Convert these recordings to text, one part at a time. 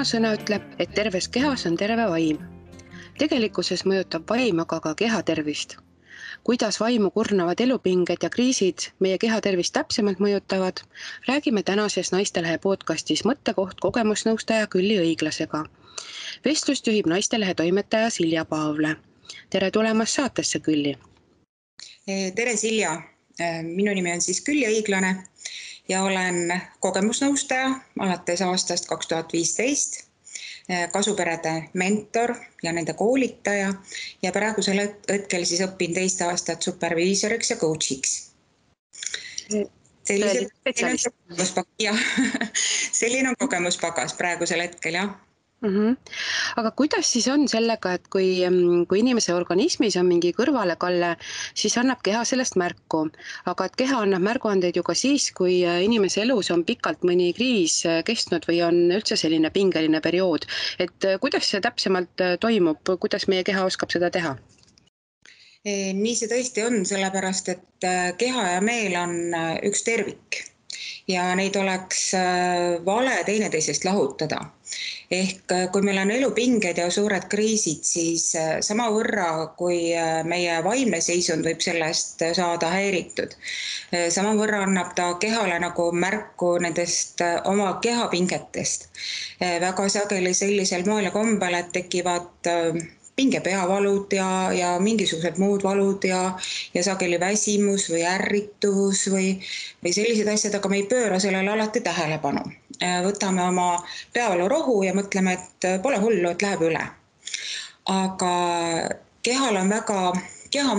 Vanasõna ütleb, et terves kehas on terve vaim. Tegelikkuses mõjutab vaim aga ka kehatervist. Kuidas vaimu kurnavad elupinged ja kriisid meie kehatervist täpsemalt mõjutavad, räägime tänases Naistelehe podcastis Mõttekoht kogemusnõustaja Külli Õiglasega. Vestlust juhib Naistelehe toimetaja Silja Paavle. Tere tulemast saatesse, Külli! Tere, Silja! Minu nimi on siis Külli Õiglane ja olen kogemusnõustaja alates aastast 2015, kasuperede mentor ja nende koolitaja ja praegusel hetkel siis õpin teist aastat superviisoriks ja coachiks. Selline on kogemuspagas praegusel hetkel, jah. Aga kuidas siis on sellega, et kui inimese organismis on mingi kõrvalekalle, siis annab keha sellest märku, aga et keha annab märguandeid ju ka siis, kui inimese elus on pikalt mõni kriis kestnud või on üldse selline pingeline periood, et kuidas see täpsemalt toimub, kuidas meie keha oskab seda teha? Nii see tõesti on, sellepärast et keha ja meel on üks tervik ja neid oleks vale teineteisest lahutada. Ehk kui meil on elupinged ja suured kriisid, siis samavõrra, kui meie vaimne seisund võib sellest saada häiritud, samavõrra annab ta kehale nagu märku nendest oma kehapingetest. Väga sageli sellisel moel ja kombel, et tekivad pingepeavalud ja mingisugused muud valud ja sageli väsimus või ärritus või sellised asjad, aga me ei pööra sellele alati tähelepanu. Võtame oma peavalurohu ja mõtleme, et pole hullu, et läheb üle. Aga keha on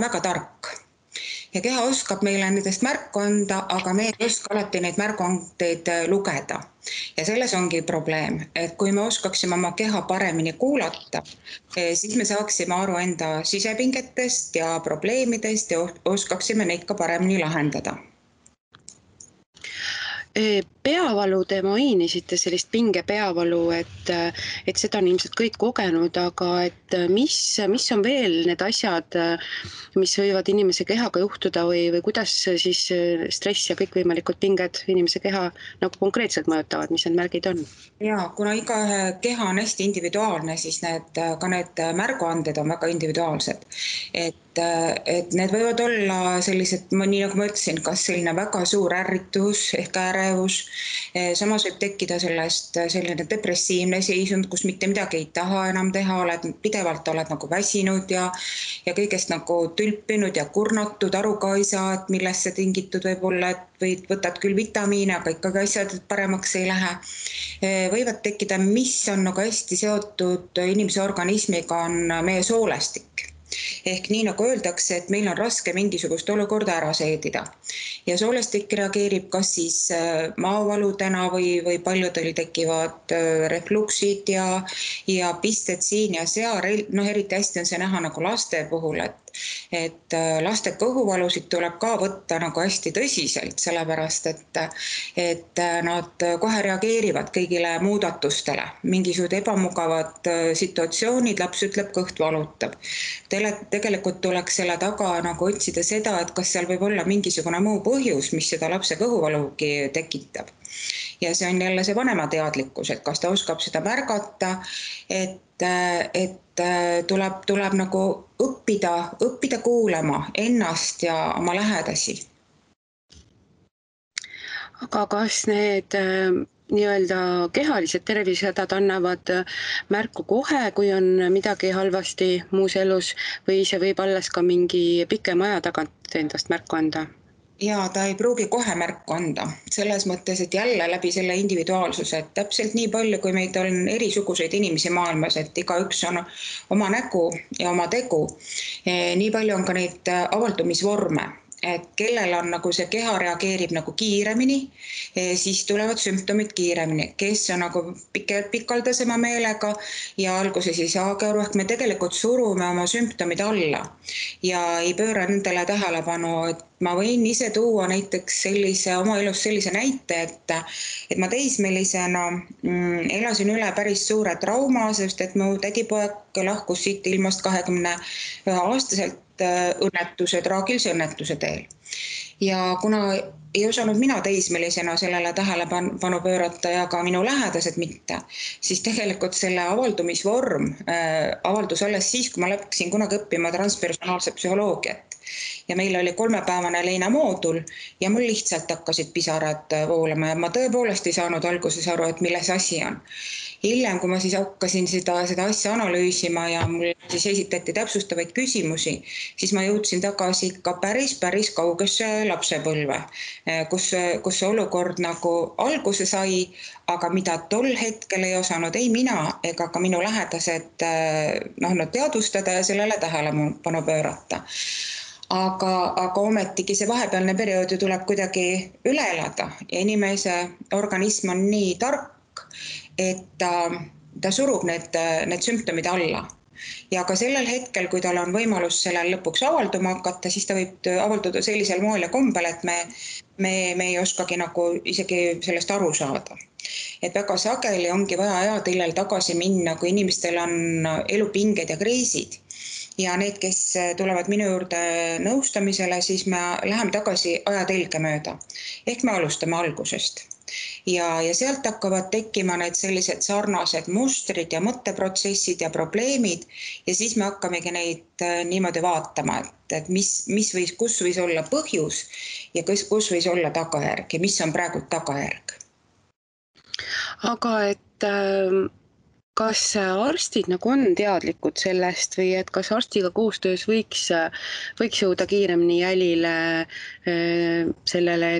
väga tark ja keha oskab meile nendest märku anda, aga me ei oska alati neid märguandeid lugeda. Ja selles ongi probleem, et kui me oskaksime oma keha paremini kuulata, siis me saaksime aru enda sisepingetest ja probleemidest ja oskaksime neid ka paremini lahendada. Peavalu te mainisite, sellist pingepeavalu, et seda on ilmselt kõik kogenud, aga et mis on veel need asjad, mis võivad inimese kehaga juhtuda või kuidas siis stress ja kõikvõimalikud pinged inimese keha nagu konkreetselt mõjutavad, mis need märgid on? Ja, kuna iga keha on hästi individuaalne, siis ka need märguanded on väga individuaalsed. Et need võivad olla sellised, nii nagu ma ütlesin, kas selline väga suur ärritus ehk ärevus, samas võib tekkida sellest selline depressiivne seisund, kus mitte midagi ei taha enam teha, pidevalt oled nagu väsinud ja kõigest nagu tülpinud ja kurnatud, aru ka ei saa, et millest see tingitud võib olla, et võtad küll vitamiine, aga ikkagi asjad paremaks ei lähe. Võivad tekkida, mis on nagu hästi seotud inimese organismiga, on meie soolestik. Ehk nii nagu öeldakse, et meil on raske mingisugust olukorda ära seedida. Ja soolestik reageerib kas siis maavaludena või paljudel tekivad refluksid ja pisted siin ja seal. Eriti hästi on see näha nagu laste puhul, et laste kõhuvalusid tuleb ka võtta nagu hästi tõsiselt, sellepärast et nad kohe reageerivad kõigile muudatustele. Mingisugused ebamugavad situatsioonid, laps ütleb, kõht valutab. Tegelikult tuleks selle taga nagu otsida seda, et kas seal võib olla mingisugune muu põhjus, mis seda lapse kõhuvalugi tekitab. Ja see on jälle see vanema teadlikkus, et kas ta oskab seda märgata, et tuleb nagu õppida kuulama ennast ja oma lähedasi. Aga kas need nii-öelda kehalised tervisehädad annavad märku kohe, kui on midagi halvasti muus elus või see võib alles ka mingi pikema aja tagant endast märku anda? Ja ta ei pruugi kohe märku anda, selles mõttes, et jälle läbi selle individuaalsuse, et täpselt nii palju, kui meid on erisuguseid inimesi maailmas, et igaüks on oma nägu ja oma tegu, nii palju on ka neid avaldumisvorme. Et kellel on nagu see keha reageerib nagu kiiremini, siis tulevad sümptomid kiiremini. Kes on nagu pikaldasema meelega ja alguses ei saagi aru, ehk me tegelikult surume oma sümptomid alla ja ei pööra nendele tähelepanu. Et ma võin ise tuua näiteks oma elus sellise näite, et ma teismelisena elasin üle päris suure trauma, sest et mu tädipoeg lahkus siit ilmast 21-aastaselt õnnetuse, traagilise õnnetuse teel. ja kuna ei osanud mina teismelisena sellele tähelepanu pöörata ja ka minu lähedased mitte, siis tegelikult selle avaldumisvorm avaldus alles siis, kui ma läksin kunagi õppima transpersonaalset psühholoogiat. Ja meil oli 3-päevane Leina moodul ja mul lihtsalt hakkasid pisarad voolama ja ma tõepoolest ei saanud alguses aru, et milles asi on. Hiljem, kui ma siis hakkasin seda asja analüüsima ja mul siis esitati täpsustavaid küsimusi, siis ma jõudsin tagasi ikka päris kaugesse lapsepõlve, kus see olukord nagu alguse sai, aga mida tol hetkel ei osanud ei mina ega ka minu lähedased teadvustada ja sellele tähelepanu pöörata. Aga ometigi see vahepealne periood ju tuleb kuidagi üle elada ja inimese organism on nii tark, et ta surub need sümptomid alla. Ja ka sellel hetkel, kui tal on võimalus sellel lõpuks avalduma hakata, siis ta võib avalduda sellisel moel ja kombel, et me ei oskagi nagu isegi sellest aru saada. Et väga sageli ongi vaja ajatillel tagasi minna, kui inimestel on elupinged ja kriisid. Ja need, kes tulevad minu juurde nõustamisele, siis me läheme tagasi ajatelge mööda. Ehk me alustame algusest. Ja sealt hakkavad tekkima need sellised sarnased mustrid ja mõtteprotsessid ja probleemid ja siis me hakkamegi neid niimoodi vaatama, et kus võis olla põhjus ja kus võis olla tagajärg ja mis on praegu tagajärg. Aga kas arstid nagu on teadlikud sellest või et kas arstiga koostöös võiks jõuda kiiremini jälile sellele,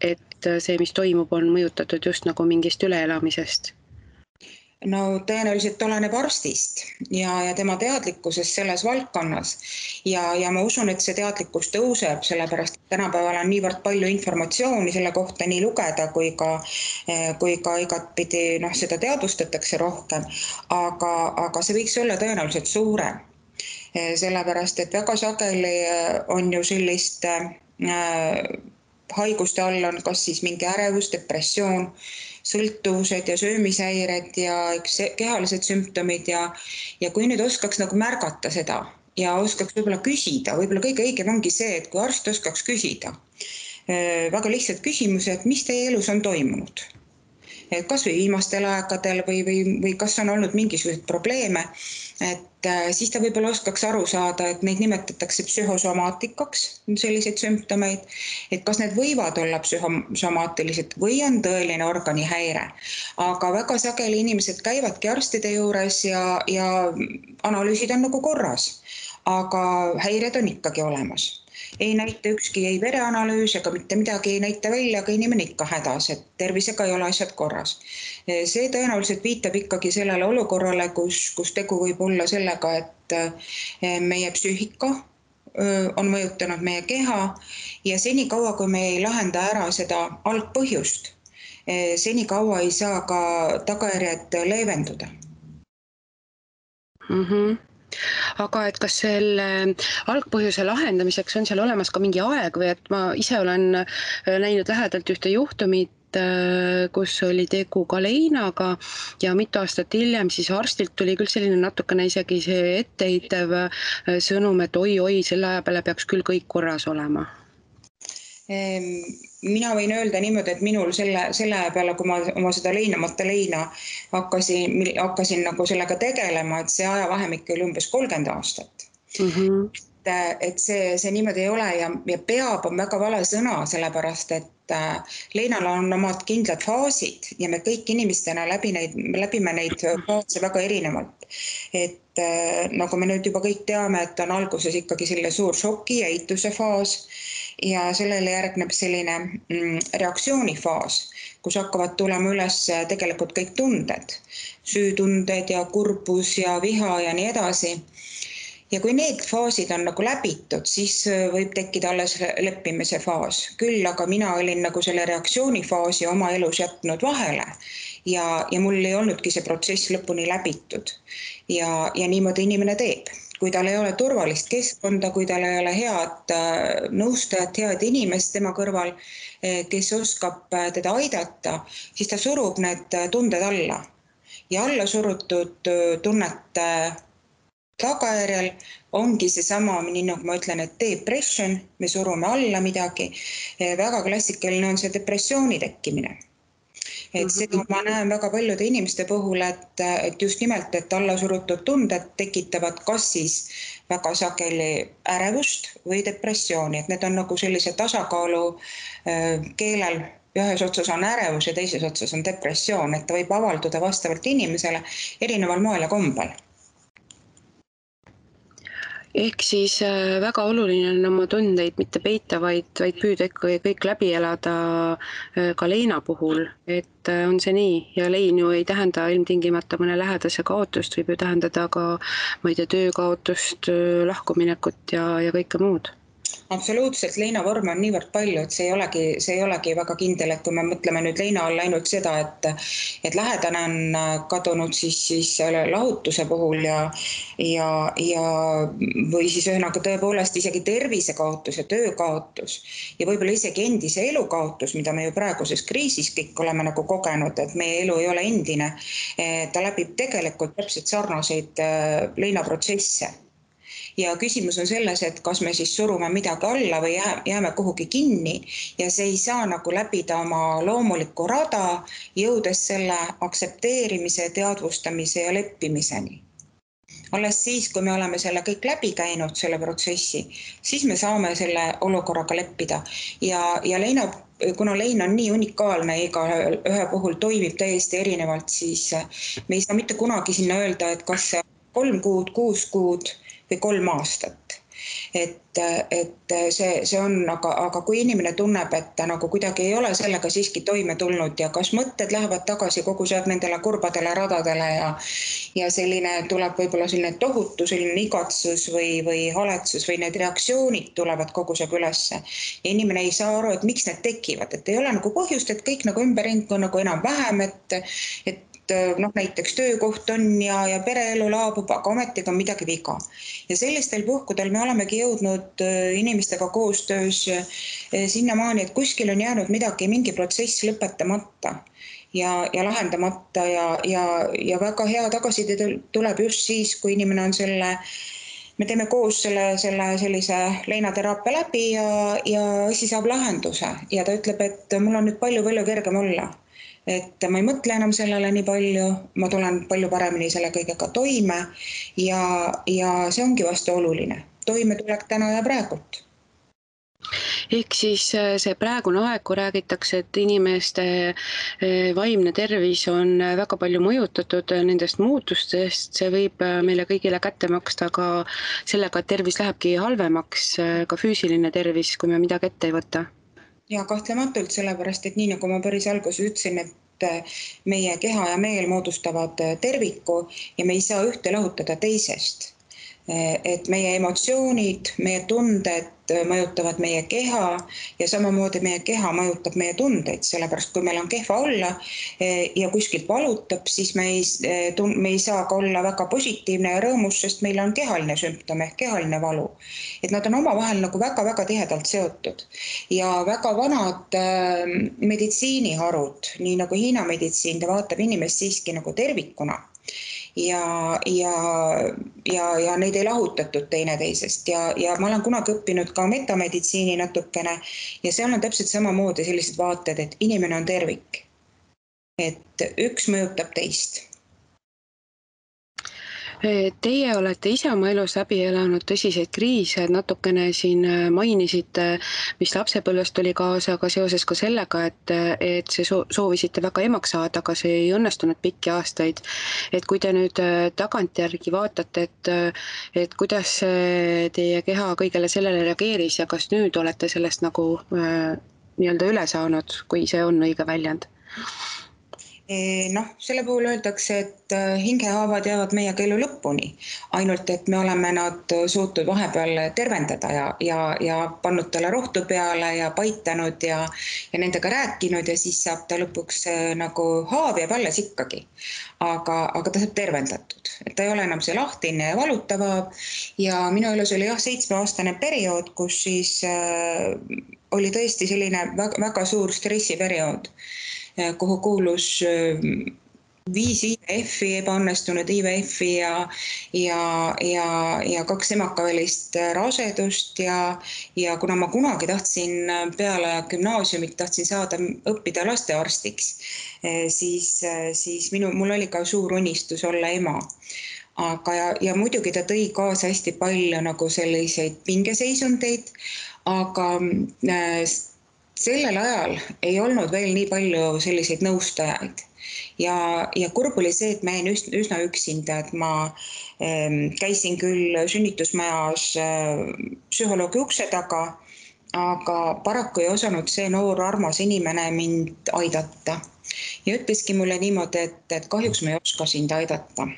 et see, mis toimub, on mõjutatud just nagu mingist üleelamisest? No tõenäoliselt oleneb arstist ja tema teadlikkusest selles valdkonnas ja ma usun, et see teadlikkus tõuseb, sellepärast et tänapäeval on niivõrd palju informatsiooni selle kohta nii lugeda kui ka igatpidi seda teadvustatakse rohkem, aga see võiks olla tõenäoliselt suurem. Sellepärast, et väga sageli on ju sellist haiguste all on kas siis mingi ärevus, depressioon, sõltuvused ja söömishäired ja kehalised sümptomid ja kui nüüd oskaks nagu märgata seda ja oskaks võib-olla küsida, võib-olla kõige õigem ongi see, et kui arst oskaks küsida väga lihtsalt küsimuse, et mis teie elus on toimunud. Kas või viimastel aegadel või kas on olnud mingisuguseid probleeme, et siis ta võib-olla oskaks aru saada, et neid nimetatakse psühhosomaatikaks, selliseid sümptomeid, et kas need võivad olla psühhosomaatilised või on tõeline organihäire. Aga väga sageli inimesed käivadki arstide juures ja analüüsid on nagu korras, aga häired on ikkagi olemas. Ei näita ükski ei vereanalüüs ega mitte midagi ei näita välja, aga inimene ikka hädas, et tervisega ei ole asjad korras. See tõenäoliselt viitab ikkagi sellele olukorrale, kus tegu võib olla sellega, et meie psüühika on mõjutanud meie keha ja senikaua, kui me ei lahenda ära seda algpõhjust, senikaua ei saa ka tagajärjed leevenduda. Aga et kas selle algpõhjuse lahendamiseks on seal olemas ka mingi aeg või et ma ise olen näinud lähedalt ühte juhtumit, kus oli tegu ka Leinaga ja mitu aastat hiljem siis arstilt tuli küll selline natukene isegi see etteheitev sõnum, et oi, selle aja peale peaks küll kõik korras olema. Mina võin öelda niimoodi, et minul selle aja peale, kui ma oma seda leinamata leina hakkasin nagu sellega tegelema, et see ajavahemik oli umbes 30 aastat. Et see niimoodi ei ole ja peab on väga vale sõna, sellepärast et leinal on omad kindlad faasid ja me kõik inimestena läbime neid faase väga erinevalt. Et nagu me nüüd juba kõik teame, et on alguses ikkagi selline suur šoki ja eituse faas ja sellele järgneb selline reaktsioonifaas, kus hakkavad tulema üles tegelikult kõik tunded, süütunded ja kurbus ja viha ja nii edasi. Ja kui need faasid on nagu läbitud, siis võib tekkida alles leppimise faas. Küll aga mina olin nagu selle reaktsioonifaasi oma elus jätnud vahele ja mul ei olnudki see protsess lõpuni läbitud. Ja niimoodi inimene teeb. Kui tal ei ole turvalist keskkonda, kui tal ei ole head nõustajat, head inimest tema kõrval, kes oskab teda aidata, siis ta surub need tunded alla. Ja alla surutud tunnete tagajärjel ongi seesama, nii nagu ma ütlen, et depression, me surume alla midagi. Väga klassikaline on see depressiooni tekkimine. Et seda ma näen väga paljude inimeste puhul, et just nimelt, et allasurutud tunded tekitavad kas siis väga sageli ärevust või depressiooni, et need on nagu sellise tasakaalu keelel. Ühes otsas on ärevus ja teises otsas on depressioon, et ta võib avalduda vastavalt inimesele erineval moel ja kombel. Ehk siis väga oluline on oma tundeid mitte peita, vaid püüda ikka kõik läbi elada ka leina puhul, et on see nii, ja lein ju ei tähenda ilmtingimata mõne lähedase kaotust, võib ju tähendada ka, ma ei tea, töö kaotust, lahkuminekut ja kõike muud. Absoluutselt, leinavorme on niivõrd palju, et see ei olegi väga kindel, et kui me mõtleme nüüd leina all ainult seda, et lähedane on kadunud siis lahutuse puhul ja või siis ühesõnaga tõepoolest isegi tervisekaotus ja töökaotus ja võib-olla isegi endise elukaotus, mida me ju praeguses kriisis kõik oleme nagu kogenud, et meie elu ei ole endine, ta läbib tegelikult täpselt sarnaseid leinaprotsesse. Ja küsimus on selles, et kas me siis surume midagi alla või jääme kuhugi kinni ja see ei saa nagu läbida oma loomulikku rada, jõudes selle aktsepteerimise, teadvustamise ja leppimiseni. Alles siis, kui me oleme selle kõik läbi käinud, selle protsessi, siis me saame selle olukorraga leppida. Ja leina, kuna lein on nii unikaalne, iga ühe puhul toimib täiesti erinevalt, siis me ei saa mitte kunagi sinna öelda, et kas see 3 kuud, 6 kuud või 3 aastat. Et see on, aga kui inimene tunneb, et ta nagu kuidagi ei ole sellega siiski toime tulnud ja kas mõtted lähevad tagasi kogu see nendele kurbadele radadele ja selline tuleb võib-olla selline tohutu selline igatsus või haletsus või need reaktsioonid tulevad kogu see ülesse. Ja inimene ei saa aru, et miks need tekivad, et ei ole nagu põhjust, et kõik nagu ümberring on nagu enam vähem, et näiteks töökoht on ja pereelu laabub, aga ometigi on midagi viga. Ja sellistel puhkudel me olemegi jõudnud inimestega koostöös sinnamaani, et kuskil on jäänud midagi, mingi protsess lõpetamata ja lahendamata ja väga hea tagasiside tuleb just siis, kui inimene on me teeme koos sellise leinateraapia läbi ja asi saab lahenduse ja ta ütleb, et mul on nüüd palju kergem olla. Et ma ei mõtle enam sellele nii palju, ma tulen palju paremini selle kõigega toime ja see ongi vast oluline. Toimetulek täna ja praegult. Ehk siis see praegune aeg, kui räägitakse, et inimeste vaimne tervis on väga palju mõjutatud nendest muutustest, see võib meile kõigile kätte maksta ka sellega, et tervis lähebki halvemaks, ka füüsiline tervis, kui me midagi ette ei võta. Ja kahtlematult sellepärast, et nii nagu ma päris alguses ütlesin, et meie keha ja meel moodustavad terviku ja me ei saa ühte lahutada teisest. Et meie emotsioonid, meie tunded mõjutavad meie keha ja samamoodi meie keha mõjutab meie tundeid, sellepärast kui meil on kehva olla ja kuskilt valutab, siis me ei saa ka olla väga positiivne ja rõõmus, sest meil on kehaline sümptom ehk kehaline valu. Et nad on omavahel nagu väga tihedalt seotud ja väga vanad meditsiiniharud, nii nagu Hiina meditsiin, ta vaatab inimest siiski nagu tervikuna. Ja neid ei lahutatud teineteisest ja ma olen kunagi õppinud ka metameditsiini natukene ja seal on täpselt samamoodi sellised vaated, et inimene on tervik. Et üks mõjutab teist. Teie olete ise oma elus läbi elanud tõsiseid kriise, natukene siin mainisite, mis lapsepõlvest tuli kaasa, aga seoses ka sellega, et see soovisite väga emaks saada, aga see ei õnnestunud pikki aastaid. Et kui te nüüd tagantjärgi vaatate, et kuidas teie keha kõigele sellele reageeris ja kas nüüd olete sellest nagu nii-öelda üle saanud, kui see on õige väljend? Selle puhul öeldakse, et hingehaavad jäävad meiega elu lõpuni, ainult et me oleme nad suutnud vahepeal tervendada ja pannud talle rohtu peale ja paitanud ja nendega rääkinud ja siis saab ta lõpuks nagu haav jääb alles ikkagi. Aga ta saab tervendatud, et ta ei ole enam see lahtine ja valutav ja minu elus oli 7-aastane periood, kus siis oli tõesti selline väga suur stressiperiood, kuhu kuulus 5 IVF-i, ebaõnnestunud IVF-i ja 2 emakavälist rasedust ja kuna ma kunagi tahtsin peale gümnaasiumit tahtsin saada õppida lastearstiks, siis mul oli ka suur unistus olla ema. Ja muidugi ta tõi kaasa hästi palju nagu selliseid pingeseisundeid, aga sellel ajal ei olnud veel nii palju selliseid nõustajaid. Ja kurb oli see, et ma jäin üsna üksinda, et ma käisin küll sünnitusmajas psühholoogi ukse taga, aga paraku ei osanud see noor armas inimene mind aidata. Ja ütleski mulle niimoodi, et kahjuks ma ei oska sind aidata.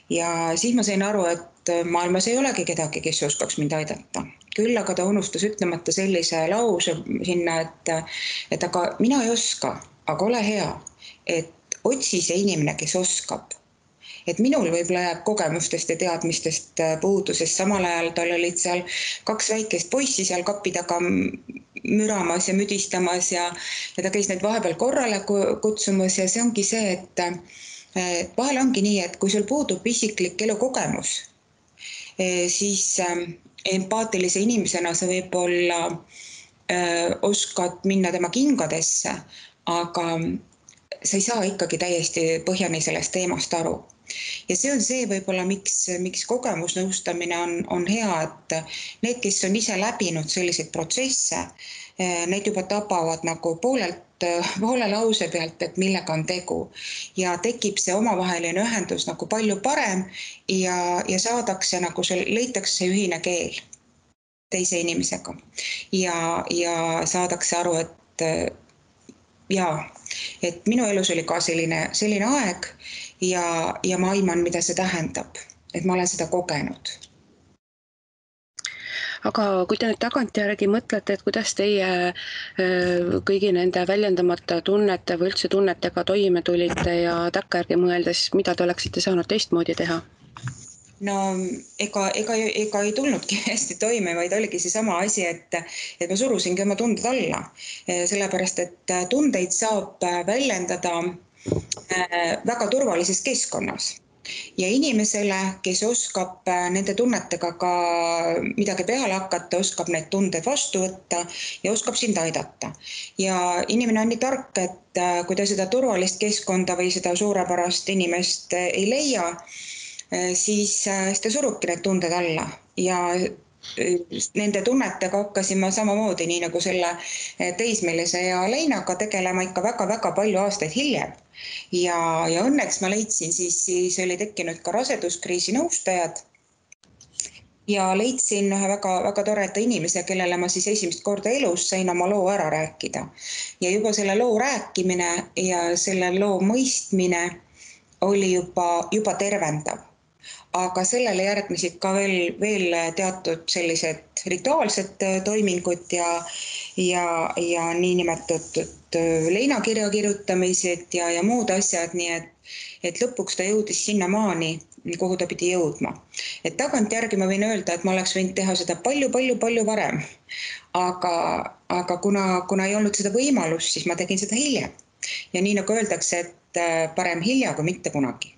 Ja siis ma sain aru, et maailmas ei olegi kedagi, kes oskaks mind aidata. Küll aga ta unustas ütlemata sellise lause sinna, et aga mina ei oska, aga ole hea, et otsi see inimene, kes oskab. Et minul võib-olla jääb kogemustest ja teadmistest puudusest, samal ajal tal olid seal 2 väikest poissi seal kapi taga müramas ja müdistamas ja ta käis neid vahepeal korrale kutsumas ja see ongi see, et vahel ongi nii, et kui sul puudub isiklik elukogemus, siis empaatilise inimesena sa võib-olla oskad minna tema kingadesse, aga sa ei saa ikkagi täiesti põhjani sellest teemast aru. Ja see on see võib-olla, miks kogemusnõustamine on hea, et need, kes on ise läbinud selliseid protsesse, need juba tabavad nagu poole lause pealt, et millega on tegu. Ja tekib see omavaheline ühendus nagu palju parem ja saadakse nagu leitakse see ühine keel teise inimesega. Ja saadakse aru, et minu elus oli ka selline aeg ja ma aiman, mida see tähendab, et ma olen seda kogenud. Aga kui te nüüd tagantjärgi mõtlete, et kuidas teie kõigi nende väljendamata tunnete või üldse tunnetega toime tulite ja takkajärgi mõeldes, mida te oleksite saanud teistmoodi teha? No ega ei tulnudki hästi toime, vaid oligi seesama asi, et ma surusingi oma tunded alla. Sellepärast, et tundeid saab väljendada väga turvalises keskkonnas. Ja inimesele, kes oskab nende tunnetega ka midagi peale hakata, oskab need tunded vastu võtta ja oskab sind aidata. Ja inimene on nii tark, et kui ta seda turvalist keskkonda või seda suurepärast inimest ei leia, siis ta surubki need tunded alla ja nende tunnetega hakkasin ma samamoodi, nii nagu selle teismelise ja Leinaga tegelema ikka väga-väga palju aastaid hiljem. Ja õnneks ma leidsin, siis oli tekkinud ka raseduskriisi nõustajad ja leidsin ühe väga toreda inimese, kellele ma siis esimest korda elus sain oma loo ära rääkida. Ja juba selle loo rääkimine ja selle loo mõistmine oli juba tervendav. Aga sellele järgnesid ka veel teatud sellised rituaalsed toimingud ja niinimetatud leinakirja kirjutamised ja muud asjad, nii et lõpuks ta jõudis sinnamaani, kuhu ta pidi jõudma. Et tagantjärgi ma võin öelda, et ma oleks võinud teha seda palju varem, aga kuna ei olnud seda võimalust, siis ma tegin seda hiljem. Ja nii nagu öeldakse, et parem hilja kui mitte kunagi.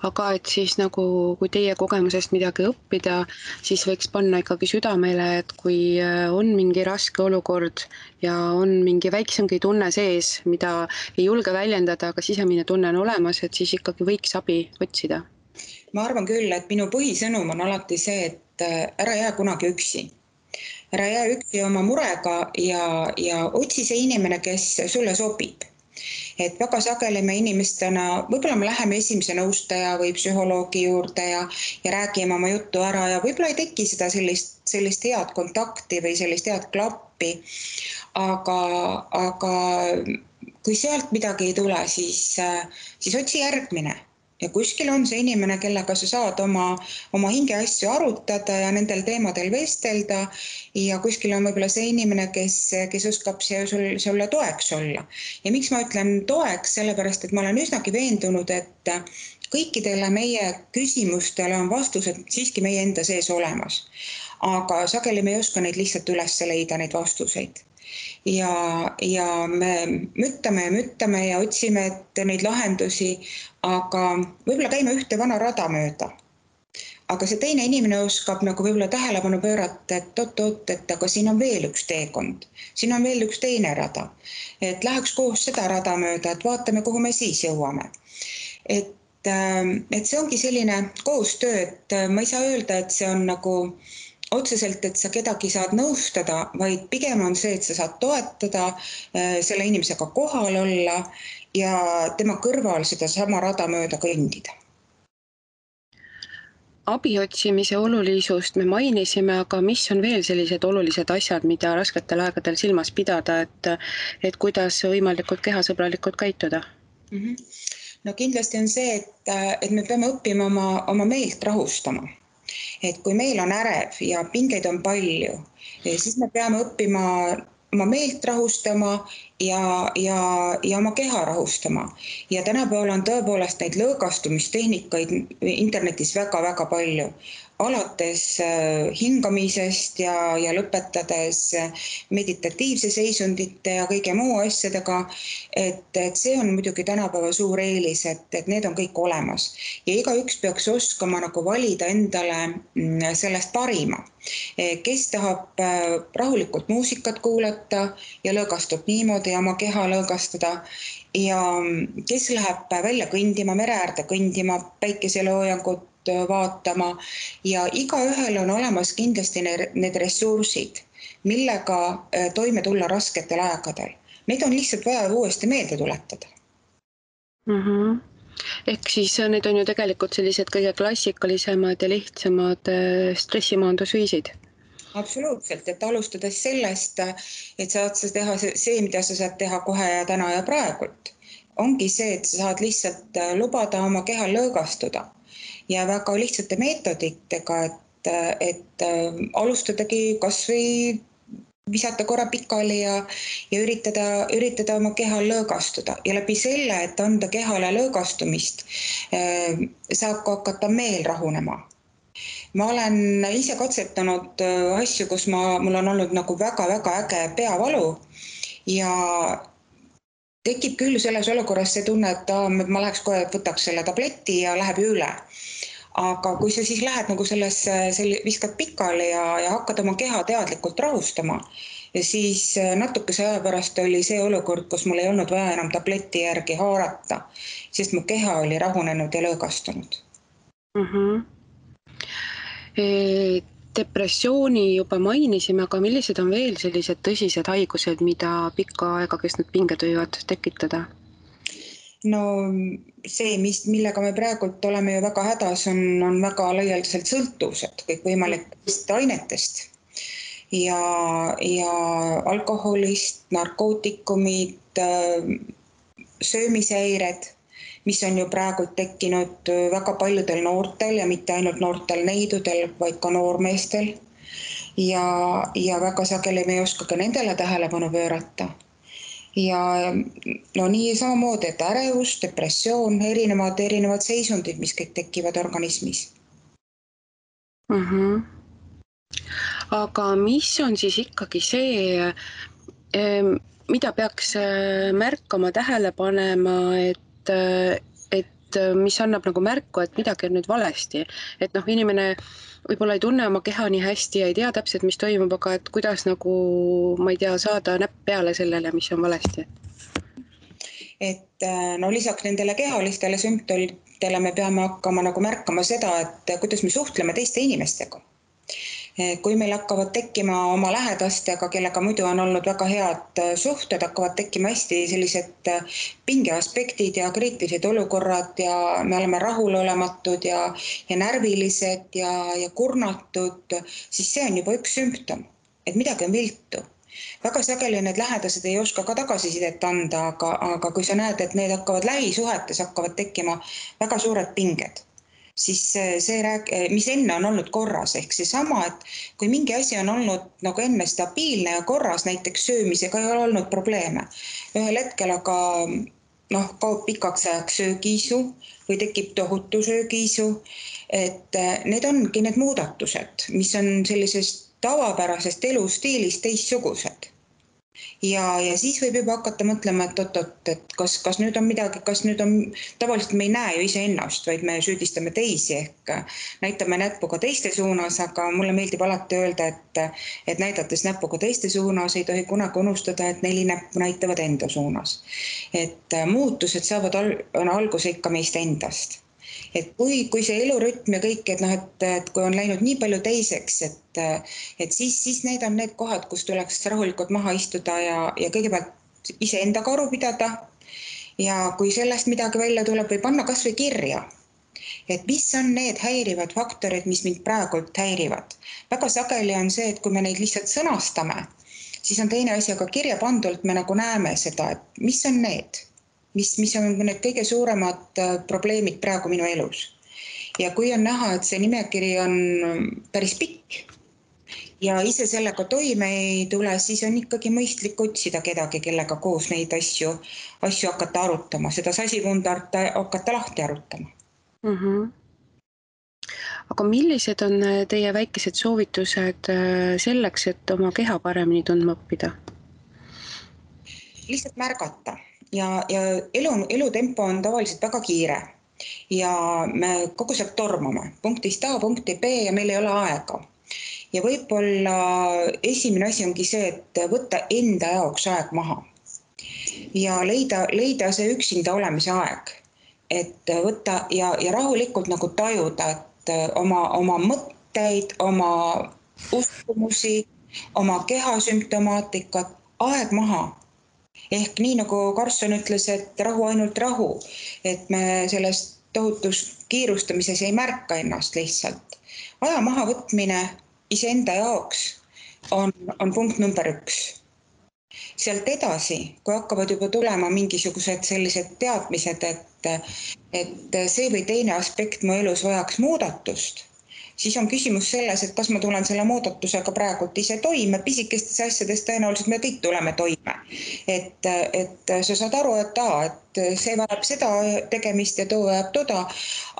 Aga et siis nagu, kui teie kogemusest midagi õppida, siis võiks panna ikkagi südamele, et kui on mingi raske olukord ja on mingi väiksemgi tunne sees, mida ei julge väljendada, aga sisemine tunne on olemas, et siis ikkagi võiks abi otsida. Ma arvan küll, et minu põhisõnum on alati see, et ära jää kunagi üksi. Ära jää üksi oma murega ja otsi see inimene, kes sulle sobib. Et väga sageli me inimestena, võib-olla me läheme esimese nõustaja või psühholoogi juurde ja räägime oma juttu ära ja võib-olla ei teki seda sellist head kontakti või sellist head klappi, aga kui sealt midagi ei tule, siis otsi järgmine. Ja kuskil on see inimene, kellega sa saad oma hingeasju arutada ja nendel teemadel vestelda ja kuskil on võib-olla see inimene, kes oskab sulle toeks olla. Ja miks ma ütlen toeks, sellepärast, et ma olen üsnagi veendunud, et kõikidele meie küsimustele on vastused siiski meie enda sees olemas. Aga sageli me ei oska neid lihtsalt üles leida, neid vastuseid. ja me müttame ja otsime neid lahendusi, aga võib-olla käime ühte vana rada mööda. Aga see teine inimene oskab nagu võib-olla tähelepanu pöörata, et oot, et aga siin on veel üks teekond, siin on veel üks teine rada. Et läheks koos seda rada mööda, et vaatame, kuhu me siis jõuame. Et see ongi selline koostöö, et ma ei saa öelda, et see on nagu otseselt, et sa kedagi saad nõustada, vaid pigem on see, et sa saad toetada, selle inimesega kohal olla ja tema kõrval seda sama rada mööda kõndida. Abi otsimise olulisust me mainisime, aga mis on veel sellised olulised asjad, mida rasketel aegadel silmas pidada, et kuidas võimalikult kehasõbralikult käituda? No kindlasti on see, et me peame õppima oma meelt rahustama. Et kui meil on ärev ja pingeid on palju, siis me peame õppima oma meelt rahustama ja oma keha rahustama. Ja tänapäeval on tõepoolest neid lõõgastumistehnikaid internetis väga-väga palju. Alates hingamisest ja lõpetades meditatiivse seisundite ja kõige muu asjadega, et see on muidugi tänapäeva suur eelis, et need on kõik olemas. Ja igaüks peaks oskama nagu valida endale sellest parima. Kes tahab rahulikult muusikat kuulata ja lõõgastub niimoodi ja oma keha lõõgastada ja kes läheb välja kõndima, mere äärde kõndima, päikeseloojangut vaatama ja igaühel on olemas kindlasti need ressursid, millega toime tulla rasketel aegadel. Neid on lihtsalt vaja uuesti meelde tuletada. Ehk siis need on ju tegelikult sellised kõige klassikalisemad ja lihtsamad stressimaandusviisid. Absoluutselt, et alustades sellest, et saad sa teha see, mida sa saad teha kohe ja täna ja praegult. Ongi see, et sa saad lihtsalt lubada oma kehal lõõgastuda ja väga lihtsate meetoditega, et alustadagi kas või visata korra pikali ja üritada oma kehal lõõgastuda ja läbi selle, et anda kehale lõõgastumist, saab ka hakata meel rahunema. Ma olen ise katsetanud asju, kus mul on olnud nagu väga-väga äge peavalu ja tekib küll selles olukorras see tunne, et ma läheks kohe, võtaks selle tableti ja läheb üle. Aga kui sa siis lähed nagu viskad pikali ja hakkad oma keha teadlikult rahustama, ja siis natukese aja pärast oli see olukord, kus mul ei olnud vaja enam tableti järgi haarata, sest mu keha oli rahunenud ja lõõgastunud. Depressiooni juba mainisime, aga millised on veel sellised tõsised haigused, mida pikka aega kestnud pinged võivad tekitada? No see, millega me praegult oleme ju väga hädas, on väga laialdaselt sõltuvused kõikvõimalikest ainetest ja alkoholist, narkootikumid, söömishäired, mis on ju praegu tekkinud väga paljudel noortel ja mitte ainult noortel neidudel, vaid ka noormeestel. Ja väga sageli me ei oska ka nendele tähelepanu pöörata. Ja no nii samamoodi, et ärevus, depressioon, erinevad seisundid, mis kõik tekivad organismis. Aga mis on siis ikkagi see, mida peaks märkama, tähele panema, et mis annab nagu märku, et midagi on nüüd valesti? Et inimene võib-olla ei tunne oma keha nii hästi ja ei tea täpselt, mis toimub, aga et kuidas nagu, ma ei tea, saada näpp peale sellele, mis on valesti? Et no lisaks nendele kehalistele sümptomitele me peame hakkama nagu märkama seda, et kuidas me suhtleme teiste inimestega. Kui meil hakkavad tekkima oma lähedastega, kellega muidu on olnud väga head suhted, hakkavad tekkima hästi sellised pingeaspektid ja kriitilised olukorrad ja me oleme rahulolematud ja närvilised ja kurnatud, siis see on juba üks sümptom, et midagi on viltu. Väga sageli need lähedased ei oska ka tagasisidet anda, aga kui sa näed, et need lähisuhetes hakkavad tekkima väga suured pinged, siis see, mis enne on olnud korras, ehk seesama, et kui mingi asi on olnud nagu enne stabiilne ja korras, näiteks söömisega ei ole olnud probleeme. Ühel hetkel aga kaob pikaks ajaks söögiisu või tekib tohutu söögiisu, et need ongi need muudatused, mis on sellisest tavapärasest elustiilist teistsugused. ja siis võib juba hakata mõtlema, et oot-oot, et kas nüüd on midagi, tavaliselt me ei näe ju iseennast, vaid me süüdistame teisi ehk näitame näpuga teiste suunas, aga mulle meeldib alati öelda, et näidates näpuga teiste suunas ei tohi kunagi unustada, et 4 näppu näitavad enda suunas. Et muutused saavad alguse ikka meist endast. Et kui see elurütm ja kõik, et kui on läinud nii palju teiseks, et siis need on need kohad, kus tuleks rahulikult maha istuda ja kõigepealt iseendaga aru pidada. Ja kui sellest midagi välja tuleb või panna kas või kirja, et mis on need häirivad faktorid, mis mind praegult häirivad. Väga sageli on see, et kui me neid lihtsalt sõnastame, siis on teine asi, aga kirja pandult me nagu näeme seda, et mis on need, mis on need kõige suuremad probleemid praegu minu elus. Ja kui on näha, et see nimekiri on päris pikk ja ise sellega toime ei tule, siis on ikkagi mõistlik otsida kedagi, kellega koos neid asju hakata arutama, seda sasipundart hakata lahti arutama. Aga millised on teie väikesed soovitused selleks, et oma keha paremini tundma õppida? Lihtsalt märgata ja elutempo on tavaliselt väga kiire ja me kogu aeg tormame punktist A punkti B ja meil ei ole aega. Ja võib-olla esimene asi ongi see, et võtta enda jaoks aeg maha ja leida see üksinda olemise aeg, et võtta ja rahulikult nagu tajuda, et oma mõtteid, oma uskumusi, oma kehasümptomaatikat, aeg maha. Ehk nii nagu Karlsson ütles, et rahu, ainult rahu, et me selles tohutus kiirustamises ei märka ennast lihtsalt. Aja maha võtmine iseenda jaoks on punkt number 1. Sealt edasi, kui hakkavad juba tulema mingisugused sellised teadmised, et see või teine aspekt mu elus vajaks muudatust, siis on küsimus selles, et kas ma tulen selle muudatusega praegult ise toime, pisikestes asjades tõenäoliselt me kõik tuleme toime. Et sa saad aru, et see vajab seda tegemist ja too vajab toda,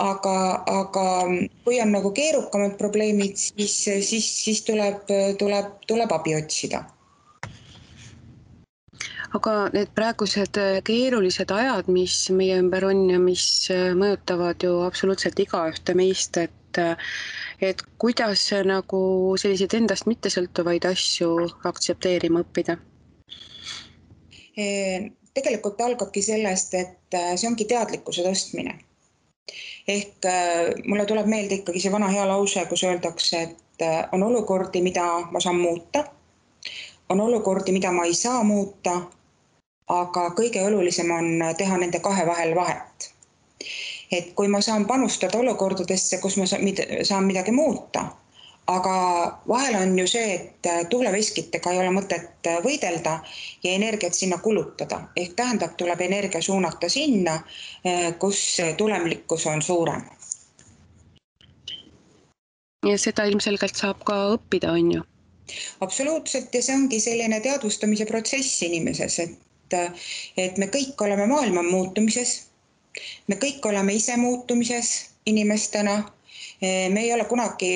aga kui on nagu keerukamad probleemid, siis tuleb abi otsida. Aga need praegused keerulised ajad, mis meie ümber on ja mis mõjutavad ju absoluutselt igaühte meist, et kuidas nagu selliseid endast mittesõltuvaid asju aktsepteerima õppida? Tegelikult algabki sellest, et see ongi teadlikkuse tõstmine. Ehk mulle tuleb meelde ikkagi see vana hea lause, kus öeldakse, et on olukordi, mida ma saan muuta, on olukordi, mida ma ei saa muuta, aga kõige olulisem on teha nende kahe vahel vahet. Et kui ma saan panustada olukordadesse, kus ma saan midagi muuta, aga vahel on ju see, et tuuleveskitega ei ole mõtet võidelda ja energiat sinna kulutada. Ehk tähendab, tuleb energia suunata sinna, kus tulemlikkus on suurem. Ja seda ilmselgelt saab ka õppida, on ju? Absoluutselt, ja see ongi selline teadvustamise protsess inimeses, et me kõik oleme maailma muutumises, me kõik oleme ise muutumises inimestena, me ei ole kunagi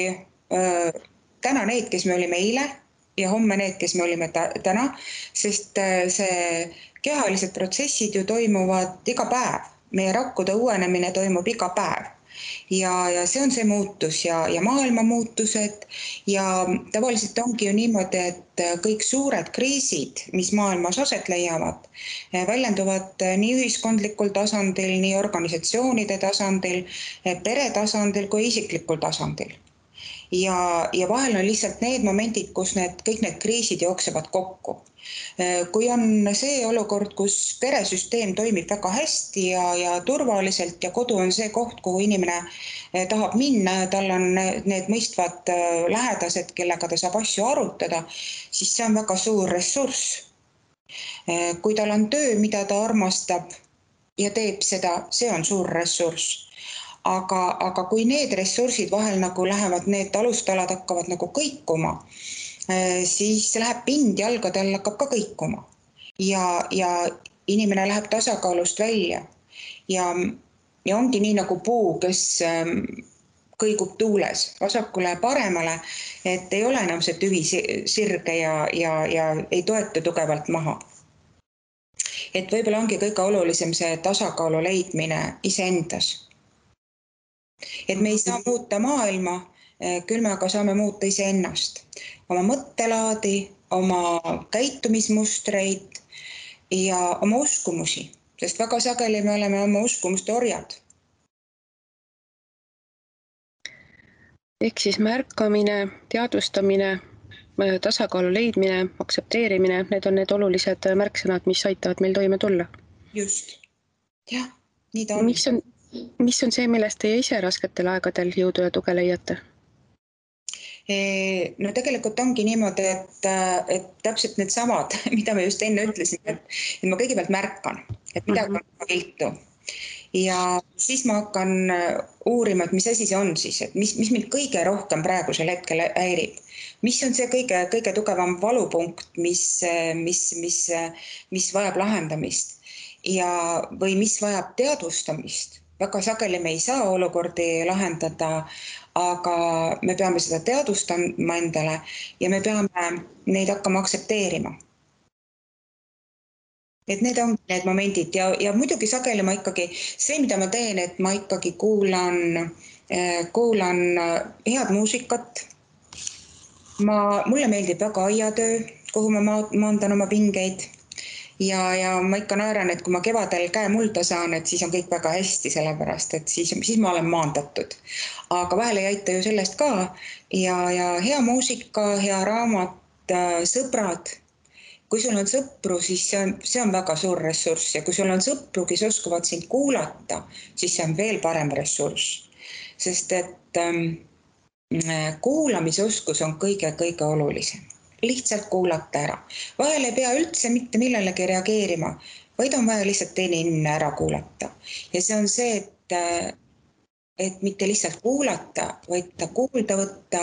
täna need, kes me olime eile ja homme need, kes me olime täna, sest see kehalised protsessid ju toimuvad iga päev, meie rakkude uuenemine toimub iga päev. Ja see on see muutus ja maailma muutused ja tavaliselt ongi ju niimoodi, et kõik suured kriisid, mis maailmas aset leiavad, väljenduvad nii ühiskondlikul tasandil, nii organisatsioonide tasandil, pere tasandil kui isiklikul tasandil. Ja vahel on lihtsalt need momendid, kus kõik need kriisid jooksevad kokku. Kui on see olukord, kus peresüsteem toimib väga hästi ja turvaliselt ja kodu on see koht, kuhu inimene tahab minna ja tal on need mõistvad lähedased, kellega ta saab asju arutada, siis see on väga suur ressurss. Kui tal on töö, mida ta armastab ja teeb seda, see on suur ressurss. Aga kui need ressursid vahel nagu lähevad, need alustalad hakkavad nagu kõikuma, siis läheb pind jalgade all hakkab ka kõikuma ja inimene läheb tasakaalust välja ja ongi nii nagu puu, kes kõigub tuules vasakule ja paremale, et ei ole enam see tüvi sirge ja ei toetu tugevalt maha. Et võib-olla ongi kõige olulisem see tasakaalu leidmine iseendas. Et me ei saa muuta maailma, küll me aga saame muuta iseennast, oma mõttelaadi, oma käitumismustreid ja oma uskumusi, sest väga sageli me oleme oma uskumuste orjad. Ehk siis märkamine, teadvustamine, tasakaalu leidmine, aktsepteerimine, need on need olulised märksõnad, mis aitavad meil toime tulla. Just. Jah, nii ta on. Mis on see, millest teie ise rasketel aegadel jõudu ja tuge leiate? No tegelikult ongi niimoodi, et täpselt need samad, mida me just enne ütlesin, et ma kõigepealt märkan, et midagi on viltu. Ja siis ma hakkan uurima, et mis asi see on siis, et mis mind kõige rohkem praegusel hetkel häirib. Mis on see kõige tugevam valupunkt, mis vajab lahendamist või mis vajab teadvustamist. Väga sageli me ei saa olukordi lahendada, aga me peame seda teadvustama endale ja me peame neid hakkama aktsepteerima. Et need on need momendid ja muidugi sageli ma ikkagi, see mida ma teen, et ma ikkagi kuulan head muusikat. Mulle meeldib väga aiatöö, kuhu ma maandan oma pingeid ja ma ikka naeran, et kui ma kevadel käe mulda saan, et siis on kõik väga hästi, sellepärast, et siis ma olen maandatud. Aga vahel ei aita ju sellest ka ja hea muusika, hea raamat, sõbrad. Kui sul on sõpru, siis see on väga suur ressurss ja kui sul on sõpru, kes oskavad sind kuulata, siis see on veel parem ressurss. Sest et kuulamisoskus on kõige olulisem. Lihtsalt kuulata ära. Vahel ei pea üldse mitte millelegi reageerima, vaid on vaja lihtsalt teine inimene ära kuulata. Ja see on see, et mitte lihtsalt kuulata, vaid ta kuulda võtta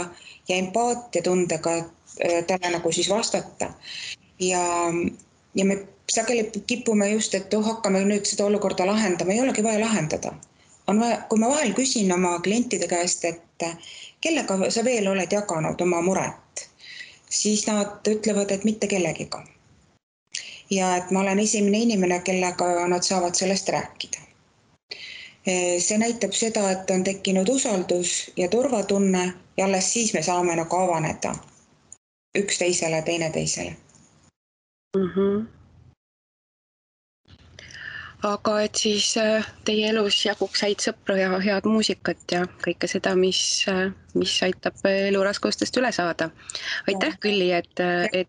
ja empaatia tundega talle nagu siis vastata. Ja me sageli kipume just, et hakkame nüüd seda olukorda lahendama, ei olegi vaja lahendada. Kui ma vahel küsin oma klientide käest, et kellega sa veel oled jaganud oma muret, siis nad ütlevad, et mitte kellegiga. Ja et ma olen esimene inimene, kellega nad saavad sellest rääkida. See näitab seda, et on tekkinud usaldus ja turvatunne ja alles siis me saame nagu avaneda üksteisele, teineteisele. Aga et siis teie elus jaguks häid sõpru ja head muusikat ja kõike seda, mis aitab elu raskustest üle saada. Aitäh, Külli, et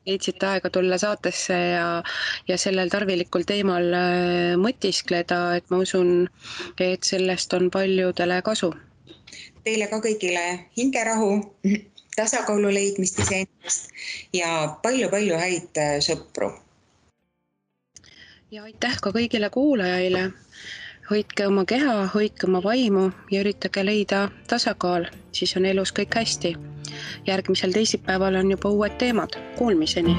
leidsid aega tulla saatesse ja sellel tarvilikul teemal mõtiskleda, et ma usun, et sellest on paljudele kasu. Teile ka kõigile hingerahu, tasakaalu leidmist iseendast ja palju häid sõpru. Ja aitäh ka kõigile kuulajaile. Hoidke oma keha, hoidke oma vaimu ja üritage leida tasakaal, siis on elus kõik hästi. Järgmisel teisipäeval on juba uued teemad. Kuulmiseni!